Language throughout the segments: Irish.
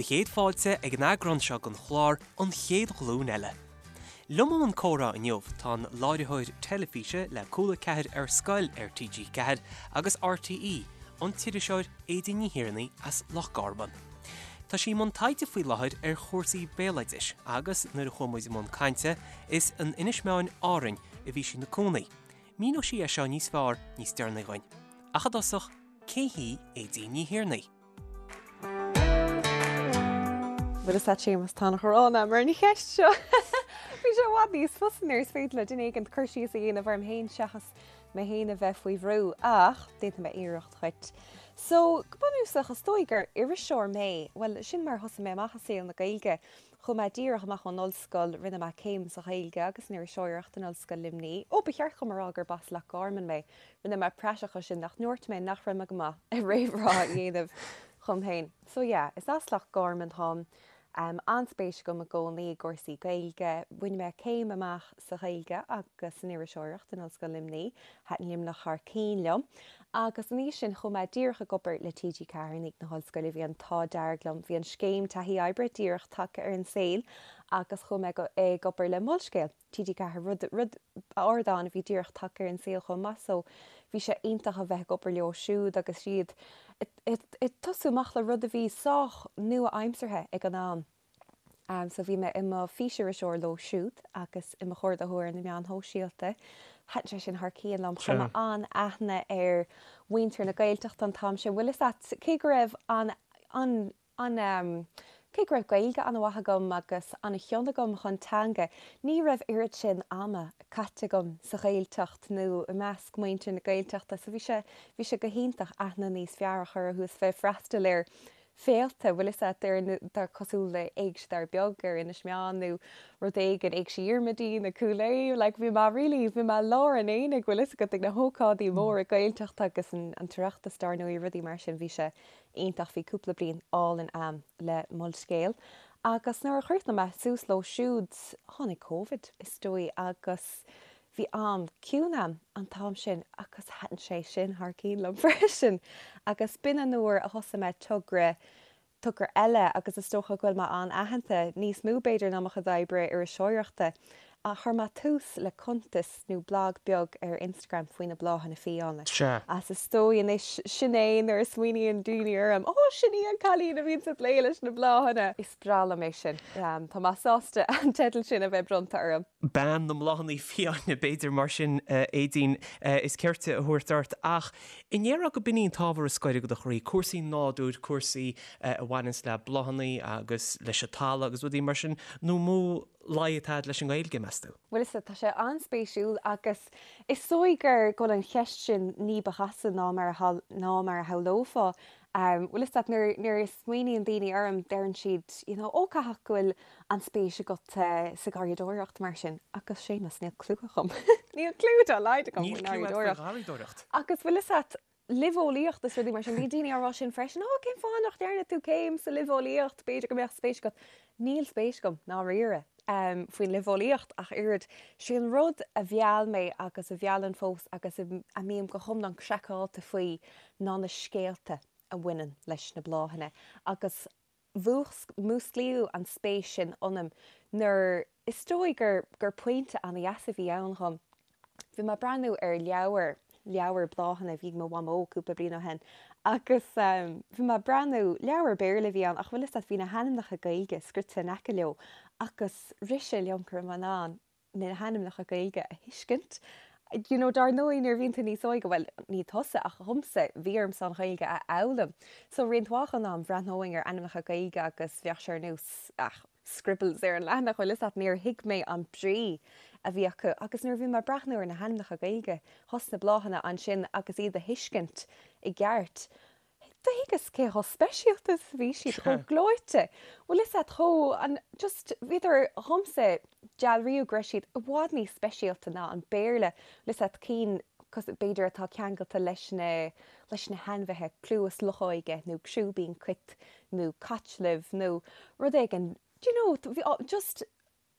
chéad fáilte ag an eagrán seo den chlár An Chéad Ghlúin Eile. Liom i mbun comhrá inniu tá an láithreoir teilifíse le Cúla 4 ar Scoil ar TG4 agus RTÉ, an t-iriseoir Aedín Ní Thiarnaigh as Loch Garman. Tá sí i mbun taighde faoi láthair ar chúrsaí béaloidis agus nuair a chuaigh muid i mbun cainte is in Inis Meáin, Árainn, a bhí sí ina cónaí. Míneoidh sí é seo níos fearr níos deireanaí dhuinn. Ach i dtosach, cé hí Aedín Ní Thiarnaigh? Bhuel a Shéamus, tá an-ghráin agam ar an cheist seo. Bhí sé i bhfad níos fusa nuair is féidir le duine éigin cur síos a dhéanamh orm féin seachas mé féin a bheith faoi bhrú, ach déanfaidh mé iarracht dhuit. So, go bunúsach, is dóigh gur iriseoir mé. Bhuel, sin mar a thosaigh mé amach i saol na Gaeilge. Chuaigh mé díreach amach ón ollscoil, rinne mé céim sa Ghaeilge agus san iriseoireacht in Ollscoil Luimnigh. Ó, ba cheart dhom a rá gurb as Loch Garman mé. Rinne mé praiseach as sin nach ndúirt mé nach raibh mé go maith ag réamhrá a dhéanamh dhom féin. So yeah, is as Loch Garman táim. An-spéis agam i gcónaí i gcúrsaí Gaeilge. Bhain mé céim amach sa Ghaeilge agus san iriseoireacht in Ollscoil Luimnigh. Thaitin Luimneach thar cinn liom. Agus ina dhiaidh sin chuaigh mé díreach ag obair le TG4 i ndiaidh na hollscoile. Bhí an t-ádh dearg liom. Bhí an scéim taithí oibre díreach tagtha ar an saol agus chuaigh mé ag obair le Molscéal. TG4, rud, rud, ardán a bhí díreach tagtha ar an saol chomh maith so bhí sé iontach a bheith ag obair leo siúd agus iad ag tosú amach le rud a bhí sách nua-aimseartha ag an am. So bhí mé i mo físiriseoir leo siúd agus i mo chomhordaitheoir ar na meáin shóisialta. Thaitin sé sin thar cionn liom. Chuir mé an-aithne ar mhuintir na Gaeltachta an t-am sin. Bhfuil fhios a't, cé go raibh an, an, An, Cé go raibh Gaeilge an-mhaith agam agus an-chion agam chun teanga, ní raibh oiread sin ama caite agam sa Ghaeltacht nó i measc muintir na Gaeltachta so bhí sé, bhí sé go hiontach aithne níos fearr a chur orthu is bheith ag freastal ar féilte, bhfuil fhios a't, ar na, cosúil le Éigse Dara Beag ar Inis Meáin nó rud éigin, Éigse Dhiarmuidín i Cúil Aodha, like bhí mé really, bhí mé i lár an aonaigh, bhfuil fhios agat, ag na hócáidí móra Gaeltachta agus an tOireachtas dar ndóigh, rudaí mar sin, bhí sé iontach. Bhí cúpla bliain álainn a'm le Molscéal agus nuair a chríochnaigh mé suas leo siúd, tháinig Covid is dóigh agus bhí am ciúin a'm an t-am sin agus thaitin sé sin thar cionn liom freisin agus b'in an uair a thosaigh mé togra, togra eile agus is dócha go bhfuil mé an-aitheanta, níos mó b'fhéidir ná mo chuid oibre iriseoireachta. Chuir mé tús le cuntas nó blag beag ar Instagram faoi na bláthanna fiáine. Sea. Is is dóigh anois, sin é nuair a smaoiníonn daoine orm, Ó, sin í an cailín a bhíonns ag plé leis na bláthanna! Is breá liom é sin. Tá mé sásta an teideal sin a bheith bronnta orm. Bean na mbláthanna fiáine, b'fhéidir, mar sin, Aedín, is cirte a thabhairt ort. Ach an ndéarfá go b'in í an t-ábhar is gaire do do chroí, cúrsaí nádúir, cúrsaí a bhaineanns le bláthanna agus leis an talamh agus rudaí mar sin, nó mó luí atá agat leis an nGaeilge, meas tú? Bhuel, is ea, tá sé an-spéisiúil agus is dóigh gur go bhfuil an cheist sin ní ba chasta ná mar a ná mar a shamhlófá. Bhfuil fhios agat, nuair nuair a smaoiníonn daoine orm, deireann siad, you know, ó caithfidh go bhfuil an-spéis agat sa gharraíodóireacht mar sin. Agus Séamus, níl cliú agam. Níl cliú dá laghad agam Níl faoin cliú agat faoi gharraíodóireacht. gharraíodóireacht. Agus bhfuil fhios agat, luibheolaíocht is rudaí mar sin. Bhí daoine á rá sin freisin, Ó, cén fáth nach ndearna tú céim sa luibheolaíocht? B'fhéidir go mbeadh spéis agat. Níl spéis agam, ndáiríre, faoin luibheolaíocht ach oiread. Sé an rud a mheall mé agus a mheallann fós agus a mbím go hiomlán craiceáilte faoi ná na scéalta a bhaineann leis na bláthanna agus Mhúsclaíodh an spéis sin ionam nuair is dóigh gur gur pointe an-dheas a bhí ann dhom. Bhí mé ag breathnú ar leabhar, leabhar bláthanna a bhí ag mo mhamó cúpla bliain ó shin agus bhí mé ag breathnú, leabhar Béarla a bhí ann ach bhfuil fhios a't bhí na hainmneacha Gaeilge scrite in aice leo agus rith sé liom go raibh mé in ann na hainmneacha Gaeilge a thuiscint. You know, dar ndóigh, nuair a bhíonn tú níos óige, bhuel, ní tusa ach dhomsa, bhí ormsa an Ghaeilge a fhoghlaim. So roinnt mhaith den am, bhreathnóinn ar ainmneacha Gaeilge agus bheadh sé ar nós, ah, scribbles ar an leathanach, bhfuil fhios a't, níor thuig mé an brí a bhí acu. Agus nuair a bhí mé ag breathnú ar na hainmneacha Gaeilge thos na bláthanna ansin agus iad a thuiscint i gceart, Do thuigeas cé chomh speisialta is a bhí siad, chomh gleoite. Bhfuil fhios a't, chomh, an, just, bhíodar, dhomsa, dealraíodh go raibh siad i bhfad níos speisialta ná an Béarla, bhfuil fhios a't, cinn, cos, b'fhéidir atá ceangailte leis na, leis na hainmhithe, cluas luchóige nó crúibín cait nó caitluibh nó rud éigin, do you know, bhí, just,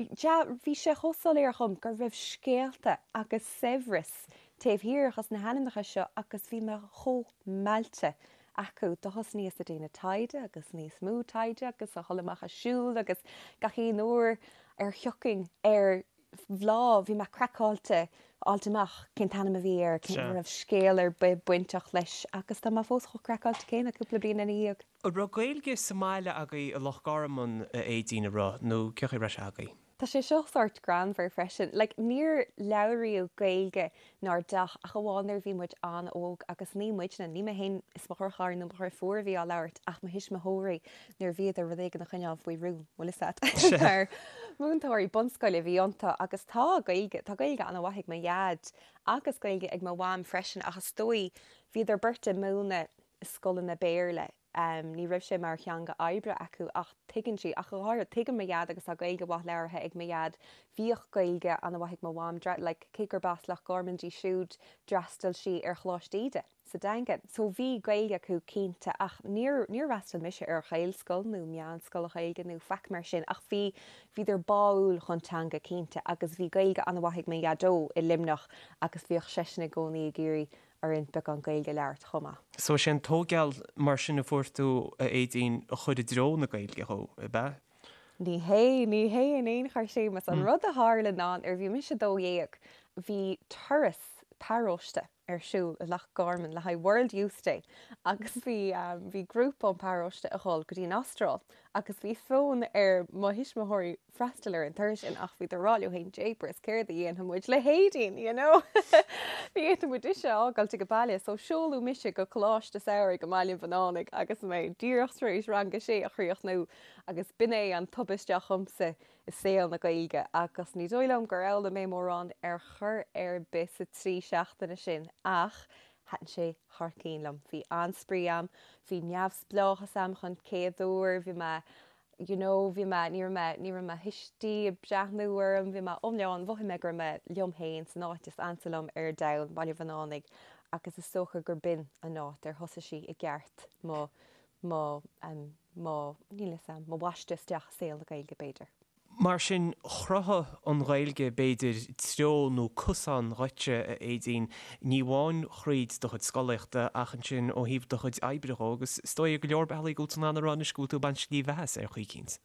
Bhí sé chomh soiléir dhom go raibh scéalta agus saibhreas taobh thiar dhos na hainmneacha seo agus bhí mé chomh meallta. acu, do thosnaíos a déanamh taighde agus níos mó taighde agus a dhul amach a siúl agus gach aon uair ar thiocfainn ar bhláth, bhí mé craiceáilte fháilt amach cén t-ainm a bhí air, cén, an raibh scéal ar bith bainteach leis agus tá mé fós chomh craiceáilte céanna cúpla bliain ina dhiaidh. An raibh Gaeilge sa mbaile agaibh i Loch Garman, a Aedín, an raibh, nó cén chaoi a raibh sé agaibh? Tá sé seo sórt greannmhar freisin. Like, níor labhraíodh Gaeilge 'nár dteach ach amháin nuair a bhí muid an-óg agus ní muidne, ní mé féin is mo dheartháir nó mo dheirfiúr a bhí á labhairt ach mo thuismitheoirí nuair a bhíodar rud éigin a choinneáil faoi rún, bhfuil fhios a't. Mar múinteoirí bunscoile a bhí iontu agus tá Gaeilge, tá Gaeilge an-mhaith ag mo dhaid agus Gaeilge ag mo mham freisin ach is dóigh bhíodar beirt ag múineadh i scoileanna Béarla. Ní raibh sé mar theanga oibre acu ach tuigeann sí, ach go háirithe, tuigeann mo dhaid agus tá Gaeilge mhaith labhartha ag mo dhaid. Bhíodh Gaeilge an-mhaith ag mo mham, like, cé gurb as Loch Garman di siúd, d'fhreastail sí ar Choláiste Íde sa Daingean. So bhí Gaeilge acu cinnte ach níor, níor fhreastail mise ar Ghaelscoil nó meánscoil Ghaeilge nó faic mar sin ach bhí, bhíodar báúil chun teanga cinnte agus bhí Gaeilge an-mhaith ag mo dhaideo i Luimneach agus bhíodh seisean i gcónaí ag iarraidh orainn beagán Gaeilge a labhairt chomh maith. So is é an tógáil mar sin a fuair tú, a Aedín, a chuir i dtreo na Gaeilge thú, ab ea? Ní hé, ní hé in aon chor, Séamus. An rud a tharla ná nuair a bhí mise 12, bhí turas paróiste ar siúl i Loch Garman le haghaidh World Youth Day agus bhí, bhí grúpa ón bparóiste a dhul go dtí an Astráil agus bhí fonn ar mo thuismitheoirí freastal ar an turas sin ach bhíodar ag rá leo féin jeepers céard a dhéanfaidh muid le hAedín, you know? Ní fhéadfaidh muid ise a fhágáilt ag baile so seoladh mise go Coláiste Samhraidh i mBaile an Bhunánaigh agus mé díreach tar éis rang a sé a chríochnú agus b'in é an tubaiste dhomsa i saol na Gaeilge agus ní dóigh liom gur fhoghlaim mé mórán ar chor ar bith sa trí seachtaine sin ach thaitin sé thar cinn liom. Bhí an-spraoi a'm, bhí neamhspleáchas a'm chun céad uair, bhí mé you know bhí mé, ní raibh mé, ní raibh mo thuistí ag breathnú orm, bhí mé iomlán, mhothaigh mé go raibh mé liom féin san áit is ansa liom ar domhan, Baile Bhunánaigh, agus is dócha gur b'in an áit ar thosaigh sí i gceart mo, mo, em, mo, níl 'fhios a'm, mo bhaisteadh isteach i saol na Gaeilge b'fhéidir. Mar sin, chruthaigh an Ghaeilge, b'fhéidir, treo nó cosán dhuitse, a Aedín, ní amháin thríd do chuid scolaíochta ach ansin ó thaobh do chuid oibre dhó, agus is dóigh ar go leor bealaí go bhfuil tú in ann a rá anois go bhfuil tú ag baint slí bheatha as ar chaoi eicínt.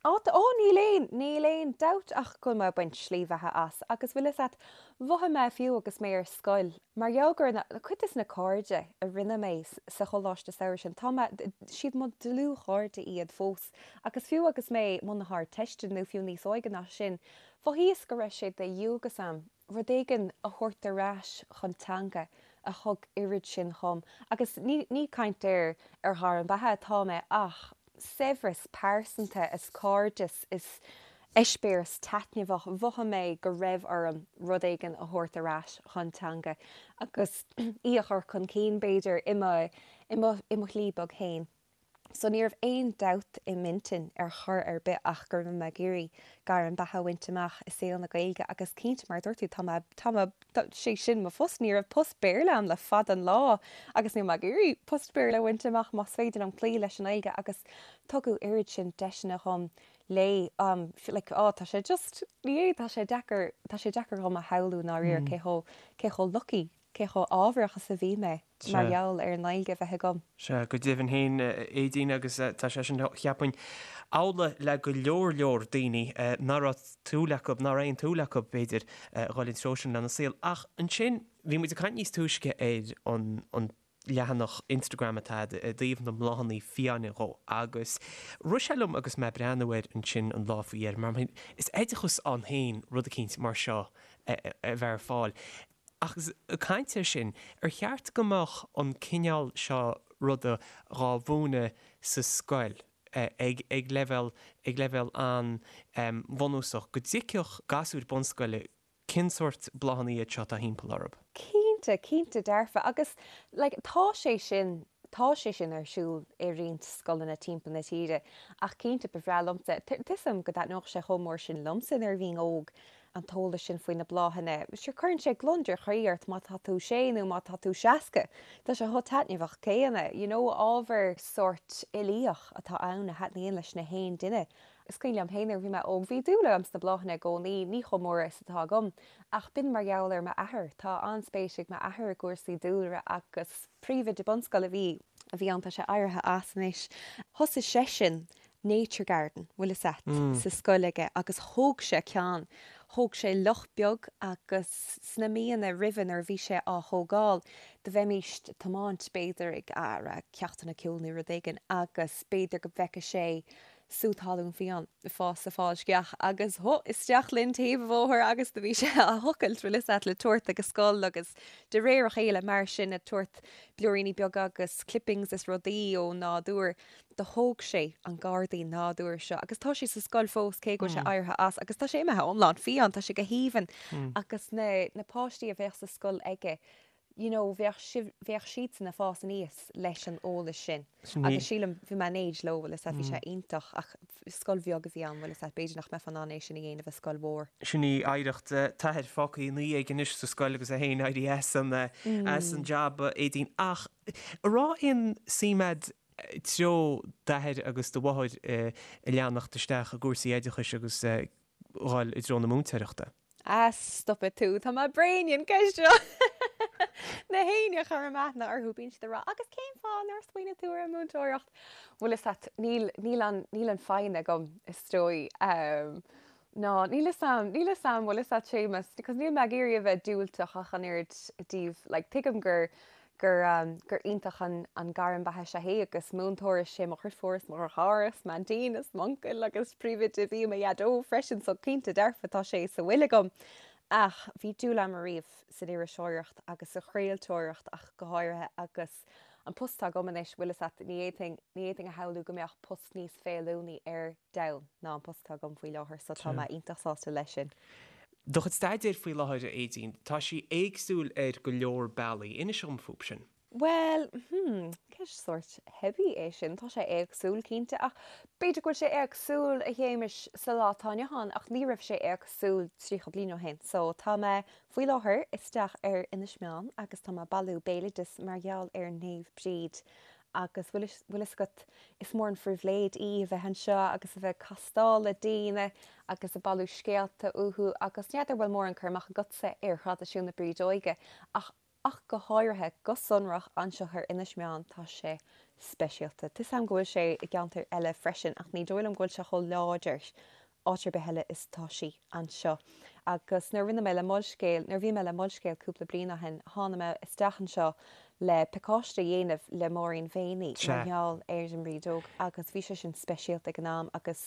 Á, ó, níl aon, níl aon dabht ach go bhfuil mé ag baint slí bheatha as, agus bhfuil 'fhios a't, mhothaigh mé fiú agus mé ar scoil, Mar gheall gur cuid des na cairde a rinne mé sa choláiste samhraidh sin, tá mé, siad mo dlúthchairde iad fós. Agus fiú agus mé i mbun na hArdteiste nó fiú níos óige ná sin, mhothaíos go raibh sé de dhualgas a'm rud éigin a thabhairt ar ais chun teanga a thug oiread sin dhom. Agus ní, ní caint ar, ar ghairm beatha atá mé ach saibhreas pearsanta is cairdeas is eispéireas taitneamhach, mhothaigh mé go raibh orm rud éigin a thabhairt ar ais chun teanga agus í a chur chun cinn, b'fhéidir, i mo, i mo, i mo shlí beag féin. So ní raibh aon dabht i m'intinn ar chor ar bith ach go raibh mé ag iarraidh gairm beatha a bhaint amach i saol na Gaeilge agus cinnte, mar a dúirt tú, tá mé, tá mé, sé sin mo phost, ní raibh post Béarla a'm le fada an lá agus níl mé ag iarraidh post Béarla a bhaint amach más féidir liom cloí leis an nGaeilge agus tugadh oiread sin deiseanna dhom léi, like, á, tá sé just, ní hé, tá sé deacair, tá sé deacair dhom a shamhlú i ndáiríre cé chomh, cé chomh lucky, cé chomh ádhmharach is a bhí mé mar gheall ar an nGaeilge a bheith agam. Sea, go deimhin féin, a Aedín, agus tá sé sin, cheapfainn, amhlaidh le go leor leor daoine nach raibh súil acu, nach raibh aon tsúil acu, b'fhéidir, a dhul an treo sin lena saol. Ach ansin, bhí muid ag caint níos túisce ar an leathanach Instagram atá agat i dtaobh na mbláthanna fiáine dhó agus rith sé liom agus mé ag breathnú air ansin an lá faoi dheireadh, mar is oideachas ann féin rud eicínt mar seo a bheith ar fáil. Ach ag caint air sin, ar cheart go mbeadh an cineál seo ruda dhá mhúineadh sa scoil ag ag leibhéal ag leibhéal an-bhunúsach, go dtuigfeadh gasúir bunscoile cén sórt bláthanna iad seo atá thimpeall orthu? Cinnte, cinnte dearfa. Agus like tá sé sin, tá sé sin ar siúl i roinnt scoileanna timpeall na tíre ach cinnte ba bhreá liomsa, tá 'fhios a'm go dtaitneodh sé chomh mór sin liomsa nuair a bhínn óg, an t-eolas sin faoi na bláthanna. Sure cuireann sé gliondar chroí ort má tá tú sé nó má tá tú 60. Tá sé chomh taitneamhach céanna. You know, ábhar sórt uilíoch atá ann a thaitníonn leis na haon duine. Is cuimhin liom féin nuair a bhí mé óg, bhí dúil agam sna bláthanna i gcónaí, ní chomh mór is atá agam, ach b'in mar gheall ar m'athair. Tá an-spéis ag m'athair i gcúrsaí dúlra agus príomhoide bunscoile a bhí a bhí ann, tá sé éirithe as anois. Thosaigh seisean nature garden, bhfuil fhios a't, sa scoil aige agus thóg sé ceann, thóg sé loch beag agus sna míonna roimhe nuair a bhí sé á thógáil, do bheimíst ag tiomáint b'fhéidir ag a' ceachtanna ceoil nó rud éigin agus b'fhéidir go bhfeiceadh sé sú talún fiáin ag fás sa fál sceach agus hó isteach linn taobh an bhóthair agus do bhí sé á thochailt, bhfuil fhios a't, le tabhairt ag an scoil agus de réir a chéile mar sin ag tabhairt blúiríní beaga agus clippings is rudaí ón nádúr. Do thóg sé an gairdín nádúir seo agus tá sé sa scoil fós cé go bhfuil sé éirithe as agus tá sé imithe iomlán fiáin, tá sé go haoibhinn agus na na páistí a bheadh sa scoil aige you know bheadh sibh bheadh siadsan ag fás aníos leis an eolas sin agus sílim bhí mé in éad leo bhfuil fhios a't bhí sé iontach ach scoil bheag a bhí ann bhfuil fhios a't b'fhéidir nach mbeifeá in ann é sin a dhéanamh i scoil mhór. Sin í oidhreacht t'athar fágtha ina dhiaidh anois sa scoil agus é féin éirithe as an as an jab a Aedín ach an raibh aon suim a'd treo d'athair agus do mháthair a leanacht isteach i gcúrsaí oideachais agus dhul i dtreo na múinteoireachta. Ah, stopfaidh tú, tá mé bréan den cheist seo! Na héinne a chuirim aithne orthu, bíonn siad ag rá, agus cén fáth nár smaoinigh tú ar an múinteoireacht? Bhfuil fhios a't, níl, níl an, níl an foighne agam, is dóigh. Ná, níl fhios a'm, níl fhios a'm, bhfuil fhios a't Séamus, because níl mé ag iarraidh a bheith diúltach ach an oiread i dtaobh, like, tuigim gur, gur, gur iontach an, an gairm beatha is ea é agus múinteoir is é mo dheirfiúr is mo dheartháir is m'aintín is m'uncail agus príomhoide a bhí i mo dhaideo freisin so cinnte dearfa tá sé sa bhfuil agam. Ach bhí dúil a'm ariamh san iriseoireacht agus sa chraoltóireacht ach go háirithe agus an post atá agam anois, bhfuil fhios a't, ní fhéadfainn, ní fhéadfainn a shamhlú go mbeadh post níos feiliúnaí ar domhan ná an post atá agam faoi láthair so tá mé iontach sásta leis sin. Do chuid staidéir faoi láthair, a Aedín, tá sí éagsúil ar go leor bealaí. Inis dhom fúb sin. Bhuel, hmm, ceist sórt theibí é sin. Tá sé éagsúil, cinnte, ach b'fhéidir go bhfuil sé éagsúil, a Shéamais, sa lá atá inniu ann, ach ní raibh sé éagsúil 30 bliain ó shin. So, tá mé faoi láthair isteach ar Inis Meáin agus tá mé ag bailiú béaloideas mar gheall ar Naomh Bríd Agus bhfuil fhios agat, is mór an phribhléid í a bheith anseo agus a bheith ag castáil le daoine agus ag bailiú scéalta uathu agus n'fheadar bhfuil mórán cur amach agatsa ar thraidisiún na Brídeoige ach ach go háirithe, go sonrach anseo ar Inis Meáin, tá sé speisialta. Tá 'fhios a'm go bhfuil sé i gceantair eile freisin ach ní dóigh liom go bhfuil sé chomh láidir áit ar bith eile is atá sí anseo. Agus nuair a rinne mé le Molscéal, nuair a bhí mé le Molscéal cúpla bliain ó shin, tháinig mé isteach anseo le pacáiste a dhéanamh le Máirín Mhéiní mar gheall ar an mBrídeog agus bhí sé sin speisialta ag an am agus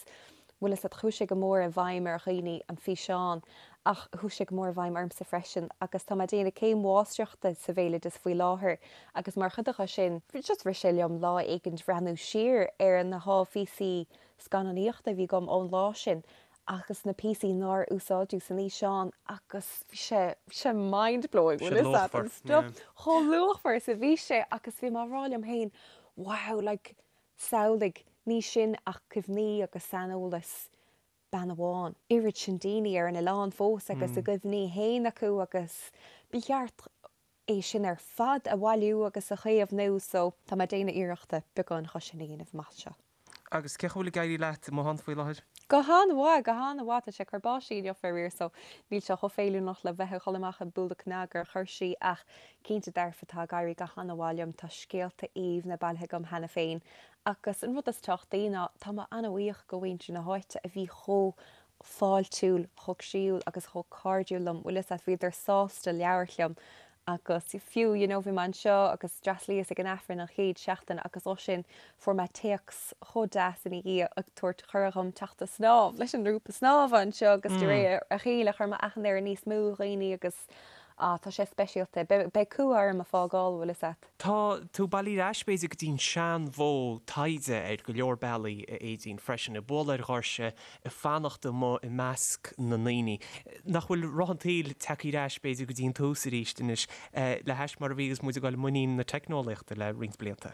bhfuil fhios a't, chuaigh sé go mór i bhfeidhm ar dhaoine, an físeán, ach chuaigh sé go mór i bhfeidhm ormsa freisin agus tá mé ag déanamh céim mháistreachta sa bhéaloideas faoi láthair agus mar chuid de sin, just rith sé liom lá éigin bhreathnú siar ar na háphíosaí scannánaíochta a bhí agam ón lá sin agus na píosaí nár úsáideadh san fhíseán agus bhí sé, bhí sé mind blowing, bhfuil fhios a't, an stuff chomh luachmhar is a bhí sé agus bhí mé á rá liom féin wow, like samhlaigh, ní sin ach cuimhní agus saineolas bean amháin, oiread sin daoine ar an oileán fós agus a gcuimhní féin acu agus ba cheart é sin ar fad a bhailiú agus a chaomhnú so tá mé ag déanamh iarrachta beagán dhe sin a dhéanamh amach anseo. Agus cén chaoi a bhfuil ag éirí leat amuigh ann faoi láthair? Go han-mhaith, go han-mhaith. Tá sé ag cur báistí inniu faraor so níl sé chomh feiliúnach le bheith ag dhul amach ag bualadh cnag ar dhoirsí ach cinnte dearfa tá ag éirí go han-mhaith liom. Tá scéalta aoibhne bailithe agam cheana féin agus an rud is tábhachtaí ná tá mé an-bhuíoch go mhuintir na háite a bhí chomh fáiltiúil, chomh croíúil agus chomh cairdiúil liom, bhfuil fhios a't, bhíodar sásta labhairt liom agus fiú, you know, bhí mé anseo agus d'fhreastlaíos ag an Aifreann an chéad seachtain agus ó sin fuair mé téacs chomh deas ina dhiaidh ag tabhairt cuireadh dhom teacht a snámh leis an ngrúpa snámha anseo agus de réir a chéile chuir mé aithne ar níos mó dhaoine agus ah tá sé speisialta. Beidh cumha orm a fágáil, bhfuil fhios a't. Tá tú ag bailiú ar ais, b'fhéidir, go dtí an seanmhodh taighde ar go leor bealaí, a Aedín, freisin, ag bualadh ar dhoirse, ag fanacht amuigh i measc na ndaoine. Nach bhfuil roth an tsaoil tagtha ar ais, b'fhéidir, go dtí an tús arís anois, le hais mar a bhí agus muid ag dul i muinín na teicneolaíochta le roinnt blianta?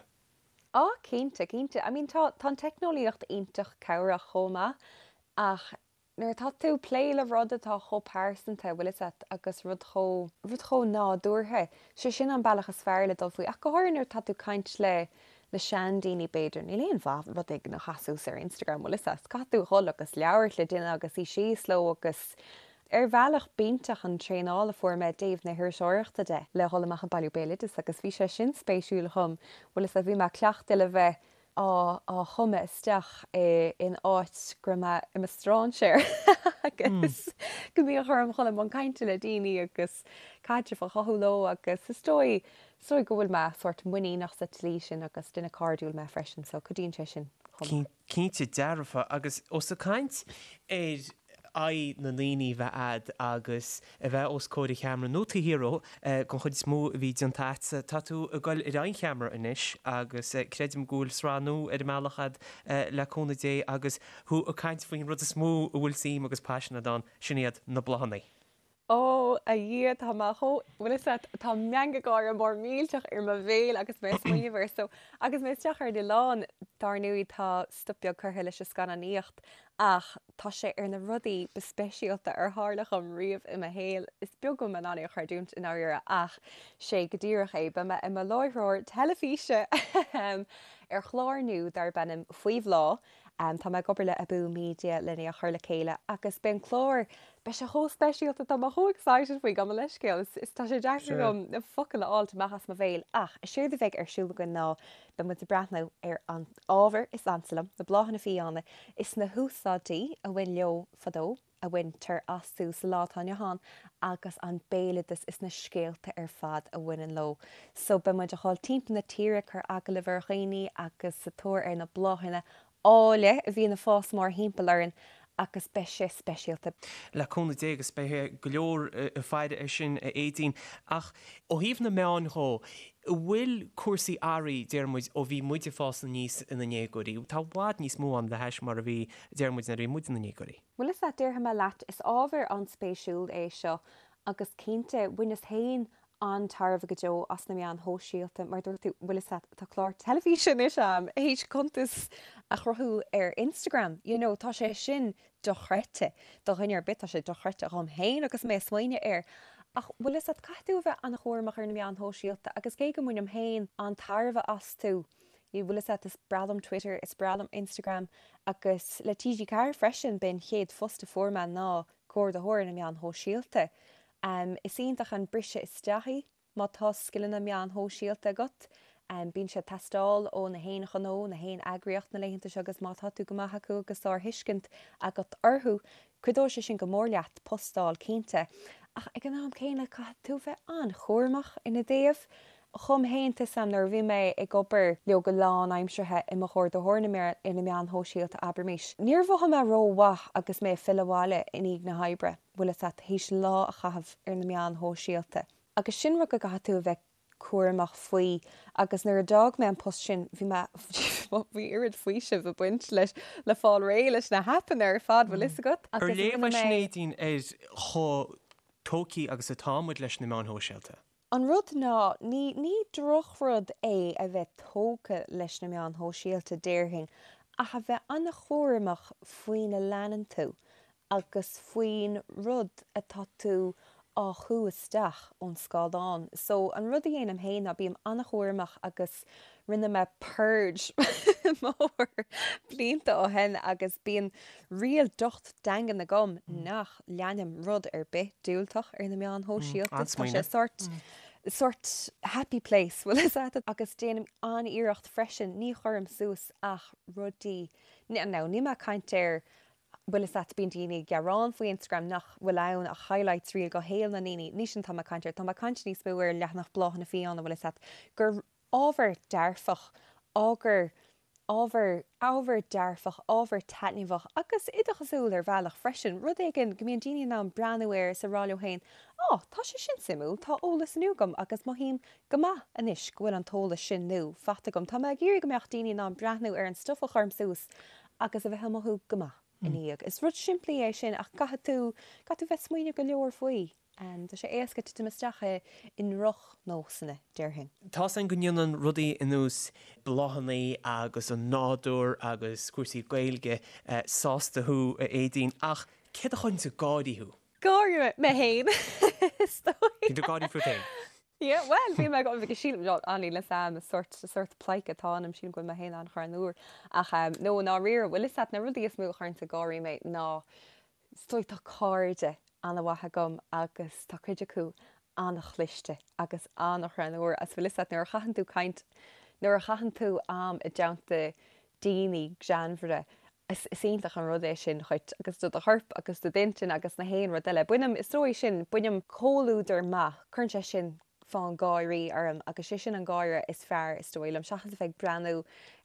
Á, cinnte, cinnte. I mean, tá, tá an teicneolaíocht iontach cabhrach chomh maith ach Nuair atá tú ag plé le rud atá chomh pearsanta, bhfuil fhios a't, agus rud chomh, rud chomh nádúrtha, sé sin an bealach is fearr le dul faoi, ach go háirithe nuair atá tú ag caint le, le seandaoine b'fhéidir, níl aon mhaith rud éigin a chasadh suas ar Instagram, bhfuil fhios a't, caithfidh tú a dhul agus labhairt le duine agus suí síos leo agus. Ar bhealach b'iontach an traenáil a fuair mé i dtaobh na hiriseoireachta de, le dhul amach ag bailiú béaloideas agus bhí sé sin spéisiúil dhom, bhfuil fhios a'd, bhí mé cleachta le bheith á á chumadh isteach i in áit go raibh mé i mo stráinséir agus go mbíodh orm dhul i mbun cainte le daoine agus caidreamh a chothú leo agus is dóigh is dóigh go bhfuil mé sórt muiníneach sa tslí sin agus duine cairdiúil mé freisin so cuidíonn sé sin chomh maith. Cinnte dearfa, agus ós ag caint ar aghaidh na ndaoine a bheith a'd agus a bheith os comhair an cheamara nó taobh thiar dhó, den chuid is mó a bhí déanta a'dsa, tá tú ag goil ar aghaidh an cheamara anois agus creidim go bhfuil sraith nua ar an mbealach a'd le cúnamh Dé agus thú ag caint faoin rud is mó a bhfuil suim agus paisean a'd ann, sin iad na bláthanna. Ó, a Dhia, tá mé chomh, bhfuil fhios a't, tá meangadh gáire mór millteach ar mo bhéal agus mé ag smaoineamh air. So, agus mé isteach ar an oileán, dár ndóigh, tá stop beag curtha leis an scannánaíocht ach tá sé ar na rudaí ba speisialta ar tharla dhom riamh i mo shaol. Is beag go bhfuil mé in ann é a chreidiúint i ndáiríre ach sé go díreach é. Beidh mé i mo láithreoir teilifíse ar chlár nua darb ainm Faoi Bhláth. Tá mé ag obair le Abú Media lena é a chur le chéile agus beidh an clár, beidh sé chomh speisialta, tá mé chomh excited faoi, gabh mo leithscéal, is tá sé deacair dom na focail a fháilt amach as mo bhéal ach is éard a bheidh ar siúl againn ná beidh muid ag breathnú ar an ábhar is ansa liom, na bláthanna fiáine, is na húsáidí a bhain leo fadó. a bhaintear astu sa lá atá inniu ann agus an béaloideas is na scéalta ar fad a bhaineann leo. So beidh muid a dhul timpeall na tíre ag cur agallamh ar dhaoine agus sa tóir ar na bláthanna áille a bhíonn ag fás mórthimpeall orainn agus beidh sé speisialta. Le cúnamh Dé agus beidh go leor ag faire air sin a Aedín. Ach ó thaobh na meáin dhó, an bhfuil cúrsaí athraithe, deir muid, ó bhí muid ag fás aníos ina ndéagóirí? Tá i bhfad níos mó ann le hais mar a bhí, deir muid, nuair a bhí muid ina ndéagóirí. Bhuel is ea, déarfaidh mé leat, is ábhar an-spéisiúil é seo agus cinnte, bhaineas féin an-tairbhe go deo as na meáin shóisialta, mar dúirt tú, bhfuil fhios a't, tá clár teilifíse anois a'm, théis cuntas a chruthú ar Instagram, you know, tá sé sin dochreidte do dhuine ar bith, tá sé dochreidte dhom féin agus mé ag smaoineamh air. Ach bhfuil fhios a't, caithfidh tú a bheith an-chúramach ar na meáin shóisialta agus cé go mbainim féin an-tairbhe astu, Bhfuil fhios a't, is breá liom Twitter, is breá liom Instagram agus le TG4 freisin, b'é an chéad phost a fuair mé ná comhordaitheoir ar na meáin shóisialta. Is iontach an briseadh isteach í má tá scileanna meáin shóisialta agat. Bíonn sé ag teastáil ó na haon ghnó, na haon eagraíocht na laethanta seo agus má tá tú go maith acu agus sárthuiscint agat orthu, cuideoidh sé sin go mór leat post a fháil cinnte. Ach ag an am céanna caithfidh tú bheith an-chúramach ina dtaobh. Dhom féin, tá 'fhios a'm, nuair a bhí mé ag obair leo go lánaimseartha i mo chomhordaitheoir ar na meáin shóisialta, abraimis, níor mhothaigh mé rómhaith agus mé ag filleadh abhaile i ndiaidh na hoibre, bhfuil fhios a't, théis lá a chaitheamh ar na meáin shóisialta. Agus sin rud go gcaithfidh tú a bheith cúramach faoi agus nuair a d'fhág mé an post sin, bhí mé, bhí oiread faoisimh ag baint leis, le fáil réidh leis na haipeanna ar fad, bhfuil fhios agat, Ar agus léamh rinne é sin mé. Aedín ar chomh tógtha agus atá muid leis na meáin shóisialta? An rud ná, ní, ní drochrud é a bheith tógtha leis na meáin shóisialta, déarfainn, ach a bheith an-chúramach faoina leanann tú agus faoin rud atá tú á shú isteach ón scáileán. So, an rud a dhéanaim féin ná bím an-chúramach agus rinne mé purge mór blianta ó shin agus bíonn riail docht daingean agam nach leanaim rud ar bith diúltach ar na meáin shóisialta. Tá sé sórt, sórt happy place, bhfuil fhios a't? Agus déanaim an-iarracht freisin, ní chuirim suas ach rudaí, now níl mé ag caint ar, bhfuil fhios a't, bíonn daoine ag gearán faoi Instagram nach bhfuil ann ach highlights reel de shaol na ndaoine, ní sin atá mé ag caint air, tá mé ag caint níos mó ar leathanach Bláthanna Fiáine, bhfuil fhios a't, gur ábhar dearfach, ábhar ábhar, ábhar dearfach, ábhar taitneamhach agus oideachasúil ar bhealach freisin, rud éigin go mbíonn daoine in ann breathnú air is a rá leo féin, 'Á, tá sé sin suimiúil, tá eolas nua agam agus mothaím go maith anois go bhfuil an t-eolas sin nua faighte agam. Tá mé ag iarraidh go mbeadh daoine in ann breathnú ar an stuif a chuirim suas agus a bheith ag mothú go maith ina dhiaidh. Is rud simplí é sin ach caithfidh tú, caithfidh tú bheith ag smaoineamh go leor faoi. Tá sé éasca titim isteach i ndrochnósanna, déarfainn. Tá's againn go ndéanann rudaí ar nós bláthanna agus an nádúr agus cúrsaí Gaeilge sásta thú, a Aedín, ach céard a chuireanns ag gáirí thú? Gáirí mé féin, is dóigh. Bíonn tú ag gáirí fút féin? Yeah, bhuel, bíonn mé ag, sílim, níl fhios a'm, is sórt, sórt pleidhce atá ionam, sílim go bhfuil mé féin an-ghreannmhar. Ach, no, i ndáiríre, bhfuil fhios a't, na rudaí is mó a chuireanns ag gáirí mé ná, is dóigh, tá cairde. ana-mhaith agam agus tá cuid acu ana-chliste agus ana-ghreannmhar agus bhfuil 'fhios a't nuair a chaitheann tú caint, nuair a chaitheann tú am i dteannta daoine greannmhara, is iontach an rud é sin dhuit agus do do chorp agus do d'intinn agus na haon rud eile. Bainim, is dóigh sin, bainim comhluadar maith, cuireann sé sin fonn gáirí orm agus sé sin an gáire is fearr is dóigh liom seachas a bheith ag breathnú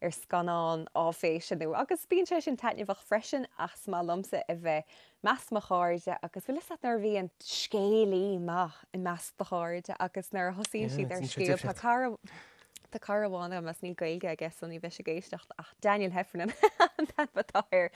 ar scannán áiféise nó agus bíonn sé sin taitneamhach freisin ach is maith liomsa a bheith measc mo chairde agus bhfuil 'fhios a't nuair a bhíonn scéalaí maith i measc do chairde agus nuair a thosaíonn siad ar scéal tá cara Tá cara amháin agam agus níl Gaeilge aige so ní bheidh sé ag éisteacht ach Daniel Heffernan an t-ainm atá air.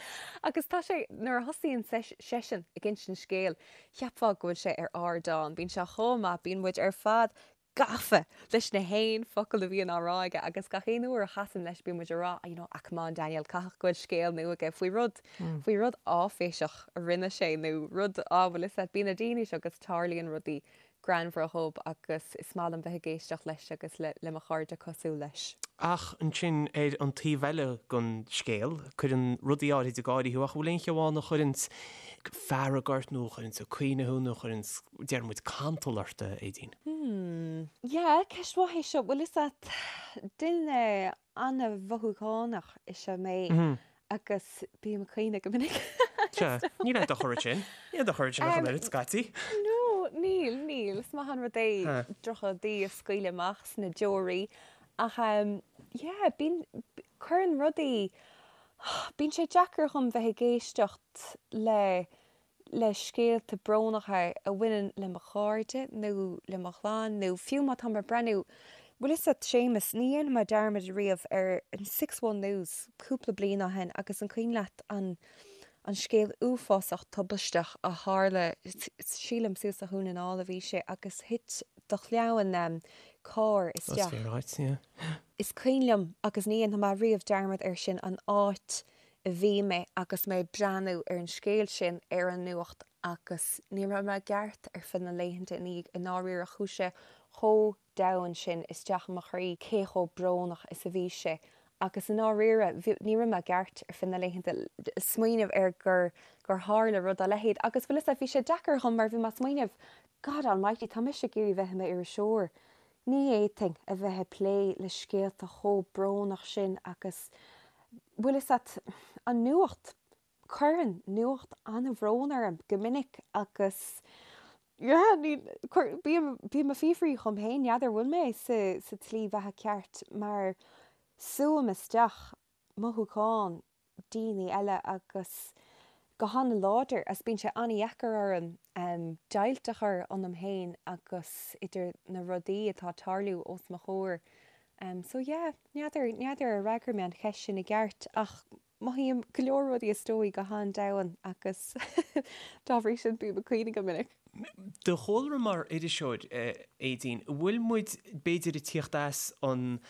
Agus tá sé, nuair a thosaíonn seisean ag insint scéil, cheapfá go bhfuil sé ar ardán. Bíonn sé chomh maith, bíonn muid ar fad gafa leis na haon focal a bhíonn á rá aige agus gach aon uair a chasaim leis bíonn muid ag rá, you know, ah come on Daniel, caithfidh go bhfuil scéal nua aige faoi rud, faoi rud áiféiseach a rinne sé nó rud, á bhfuil 'fhios a't, bíonn na daoine seo agus tarlaíonn rudaí greannmhara dhób agus is maith liom bheith ag éisteacht leis agus le mo chairde cosúil leis. Ach ansin ar an taobh eile den scéal, cuireann rudaí áirid ag gáirí thú ach an bhfuil aon cheo ann a chuireanns fearg ort nó a chuireanns ag caoineadh thú nó a chuireanns, déarfaidh muid, cantal ort, a Aedín? Hmm. Yeah, ceist mhaith é seo. Bhfuil 'fhios a't, duine an-mhothúchánach is ea mé agus bím ag caoineadh go minic. Sea, níl aon dochar ansin. Níl aon dochar ansin ach an oiread, scaití. No, níl, níl. Is maith an rud é drochrudaí a scaoileadh amach sna deoraí. Ach yeah, bíonn, cuireann rudaí, bíonn sé deacair dhom bheith ag éisteacht le le scéalta brónacha a bhaineann le mo chairde nó le mo chlann nó fiú má táim ag breathnú, bhfuil 'fhios a't Séamus, ní dhéanfaidh mé dearmad riamh ar an Six One News cúpla bliain ó shin agus an cuimhin leat an an scéal uafásach tubaisteach a tharla, sílim suas do Dhún na nGall a bhí sé agus thit do chlann carr isteach. Is cuimhin liom agus ní dhéanfaidh mé riamh dearmad air sin an áit a bhí mé agus mé ag breathnú ar an scéal sin ar an nuacht agus ní raibh mé i gceart ar feadh na laethanta ina dhiaidh i ndáiríre chuaigh sé chomh domhain sin isteach i mo chroí cé chomh brónach is a bhí sé agus i ndáiríre ní raibh mé i gceart ar feadh na laethanta smaoineamh ar gur gur tharla rud dá leithéid agus bhfuil 'fhios a't bhí sé deacair dhom mar bhí mé ag smaoineamh God almighty tá mise ag iarraidh bheith i m'iriseoir Ní fhéadfainn a bheith ag plé le scéalta chomh brónach sin agus, bhfuil 'fhios a't, an nuacht, cuireann nuacht an-bhrón orm go minic agus, yeah, ní, cuir, bím, bím ag fiafraí dhom féin, n'fheadar bhfuil mé sa, sa tslí bheatha ceart mar súim isteach mothúcháin daoine eile agus go han-láidir agus bíonn sé an-dheacair orm deighilt a chur ionam féin agus idir na rudaí atá ag tarlú os mo chomhair. So yeah, n'fheadar, n'fheadar ar fhreagair mé an cheist sin i gceart ach mothaím go leor rudaí is dóigh go han-domhain agus dá bhrí sin bím ag caoineadh go minic. Do chúlra mar iriseoir, a Aedín, an bhfuil muid b'fhéidir ag tíocht as an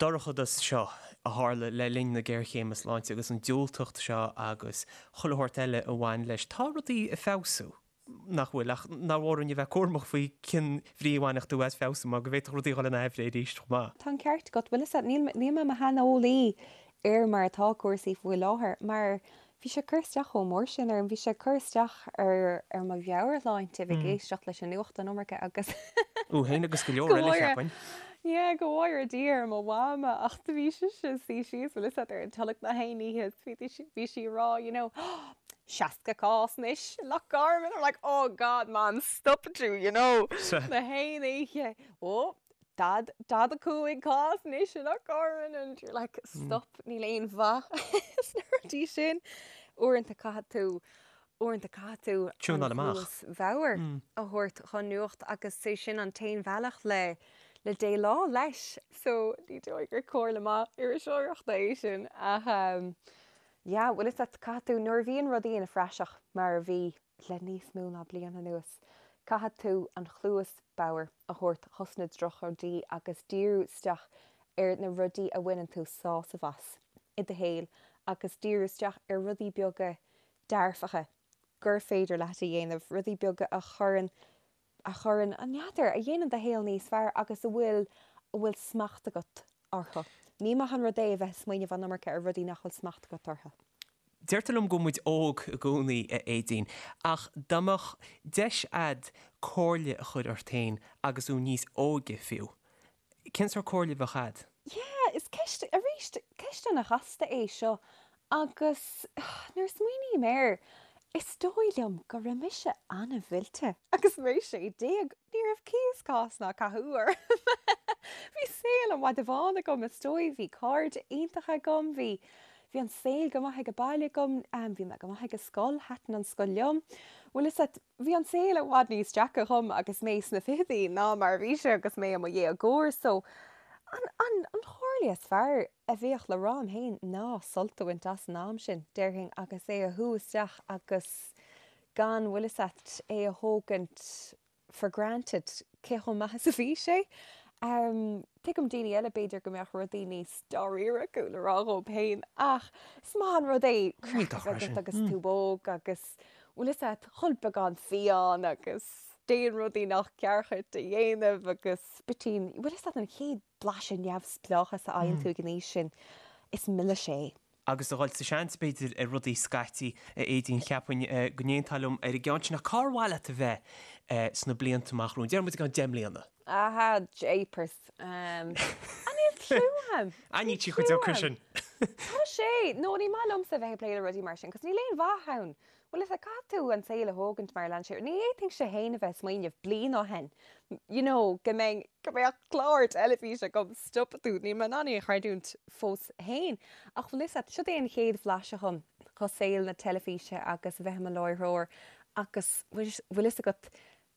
dorchadas seo a tharla le linn na géarchéime sláinte agus an diúltacht seo agus chuile shórt eile a bhain leis. Tá rudaí ag feabhsú, nach bhfuil? Ach nár mhór dúinn a bheith cúramach faoi cén bhrí a bhainfeadh tú as feabhsú mar go bhféadfadh rudaí a dhul in aimhréidh arís chomh maith. Tá an ceart agat. Bhfuil 'fhios a't, níl mé i mo shaineolaí ar mar atá cúrsaí faoi láthair mar Bhí sé ag cur isteach chomh mór sin orm, bhí sé ag cur isteach ar ar mo mheabhairshláinte, bheith ag éisteacht leis an nuacht an iomarca agus Thú féin agus go leor eile, cheapfainn. Yeah, go bhfóire Dia ar mo mhama ach do bhí sise ag suí síos, bhfuil 'fhios a't, ar an tolg na haon oíche is bhí bhí sí ag rá, you know, 60 cás anois i Loch Garman, I'm like, oh God, Mam, stop tú, you know, na haon oíche, oh, 45 cás anois i Loch Garman and you're like stop níl aon mhaith sna rudaí sin. Uaireanta caithfidh tú uaireanta caithfidh tú Tiúnáil an amach. chluas bhodhar a thabhairt chun nuacht agus sé sin an t-aon bhealach le le déileáil leis. So ní dóigh gur comhairle maith iriseoireachta é sin ach yeah bhfuil 'fhios a't caithfidh tú nuair a bhíonn rudaí ina phraiseach mar a bhí le níos mó ná bliain anuas, caithfidh tú an chluas bhodhar a thabhairt chos na drochrudaí agus díriú isteach ar na rudaí a bhaineann tú sásamh as i do shaol agus díriú isteach ar rudaí beaga dearfacha gur féidir leat a dhéanamh, rudaí beaga a chuireann, a chuireann, n'fheadar, a dhéanann do shaol níos fearr agus a bhfuil, a bhfuil smacht agat orthu. Ní maith an rud é a bheith ag smaoineamh an iomarca ar rudaí nach bhfuil smacht agat orthu. Deirtear liom go bhfuil muid óg i gcónaí, a Aedín, ach dá mbeadh deis a'd comhairle a chur ort féin agus thú níos óige fiú, cén sórt comhairle a bheadh a'd? Yeah, is ceist, arís, ceist ana-chasta é seo agus nuair a smaoiním air, is dóigh liom go raibh mise ana-mhillte agus mé 16, ní raibh cíos cás ná cathú orm. Bhí saol an mhada bháin agam, is dóigh, bhí cairde iontacha agam, bhí Bhí an saol go maith ag baile agam, bhí mé go maith ag an scoil, thaitin an scoil liom. Bhfuil fhios a't, bhí an saol i bhfad níos deacra dhom agus mé sna fichidí ná mar a bhí sé agus mé i mo dhéagóir so an, an, an chomhairle is fearr a bheadh le rá liom féin ná sult a bhaint as an am sin, déarfainn, agus é a shú isteach agus gan, bhfuil fhios a't, é a thógaint for granted cé chomh maith is a bhí sé. Tuigim daoine eile b'fhéidir go mbeadh rudaí níos dáiríre acu le rá dhóibh féin ach is maith an rud é craic a bheith agat agus tú óg agus bhfuil fhios a't ól beagán fiáin agus déan rudaí nach ceart dhuit a dhéanamh agus bitín, bhfuil fhios a't an chéad blaiseadh neamhspleáchas a fhaigheann tú ag an aois sin, is milis é. agus a dhul sa seans, b'fhéidir, ar rudaí scaití, a Aedín, cheapfainn go n-aontófá liom ar an gceann sin. Ach cár mhaith leat a bheith sna blianta amach romhainn? Déarfaidh muid i gceann 10 mbliana. Aha, jeepers. An níl cliú a'm. Ah, níl sí chomh deacair sin. Tá sé! No, ní maith liomsa a bheith ag plé le rudaí mar sin, 'cause níl aon mhaith ann. Bhuel is ea, caithfidh tú an saol a thógaint mar a leanann sé. Ní fhéadfainnse féin a bheith ag smaoineamh bliain ó shin, you know, go mbeinn, go mbeadh clár teilifíse agam, stopfaidh tú, níl mé in ann é a chreidiúint fós féin. Ach bhfuil fhios a't, siod é an chéad bhlaiseadh dhom dho saol na teilifíse agus a bheith i mo láithreoir agus bhfuil fhios agat,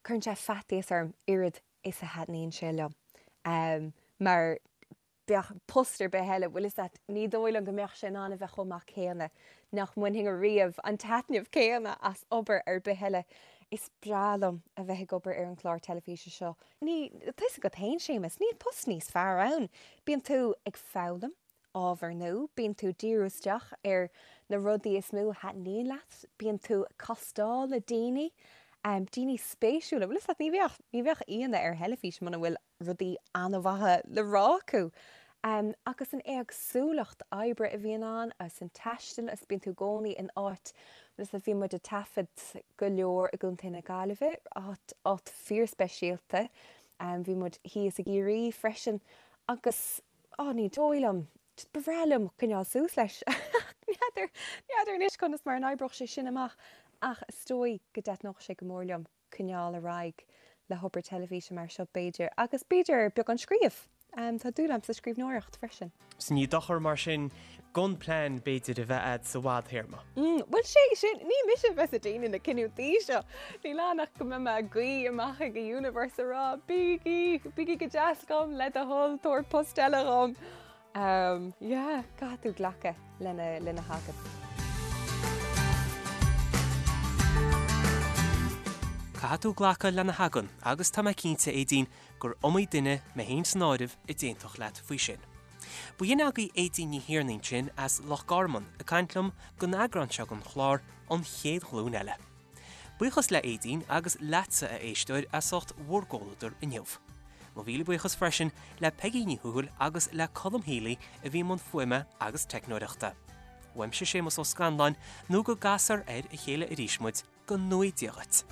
cuireann sé faitíos orm oiread is a thaitníonn sé liom. Mar bheadh post ar bith eile, bhfuil fhios a't, ní dóigh liom go mbeadh sé in ann a bheith chomh maith céanna, nach mbainfinn ariamh an taitneamh céanna as obair ar bith eile. Is breá liom a bheith ag obair ar an chlár teilifíse seo. Ní, tá fhios agat féin, Séamus, níl post níos fearr ann. Bíonn tú ag foghlaim ábhar nua, bíonn tú ag díriú isteach ar na rudaí is mó a thaitníonn leat, bíonn tú ag castáil le daoine, daoine spéisiúla, bhfuil fhios a't, ní bheadh, ní bheadh aíonna ar theilifís muna bhfuil rudaí an-mhaithe le rá acu. Agus an éagsúlacht oibre a bhíonn ann, agus an taisteal, agus bíonn tú i gcónaí in áit, agus bhí muid ag taifead go leor i gContae na Gaillimhe, áit, áit fíorspeisialta. Bhí muid thíos i gCiarraí freisin agus, á, ní dóigh liom, just ba bhreá liom coinneáil suas leis. N'fheadar, n'fheadar anois conas mar a n-oibreodh sé sin amach ach is dóigh go dtaitneodh sé go mór liom. coinneáil ar aghaidh le hobair teilifíse mar seo b'fhéidir, agus b'fhéidir beagán scríobh. Tá dúil agam sa scríbhneoireacht freisin. So ní dochar mar sin gan plean b'fhéidir a bheith a'd sa bhfadthéarma. Bhuel sé sin, ní mise a bheas ag déanamh na cinniúintí seo. Níl ann ach go mbeidh mé ag guí amach ag an universe a rá bígí, bígí go deas dhom, le do thoil, tabhair post eile dhom. Yeah, caithfidh tú glacadh lena, lena thagann. Caithfidh tú glacadh lena thagann agus tá mé cinnte, Aedín, gur iomaí duine, mé féin san áireamh, a d'aontódh leat faoi sin. Ba shin agaibh Aedín Ní Thiarnaigh ansin as Loch Garman ag caint liom don eagrán seo den chlár An Chéad Ghlúin Eile. Buíochas le Aedín agus leatsa, a éisteoir, as ucht bhur gcomhluadar inniu. Mo mhíle buíochas freisin le Peigí Ní Thuathail agus le Colm Healy a bhí i mbun fuaime agus teicneoireachta. Uaimse Séamus Ó Scanláin, nó go gcasfar ar a chéile arís muid, go ngnóthaí Dia dhuit.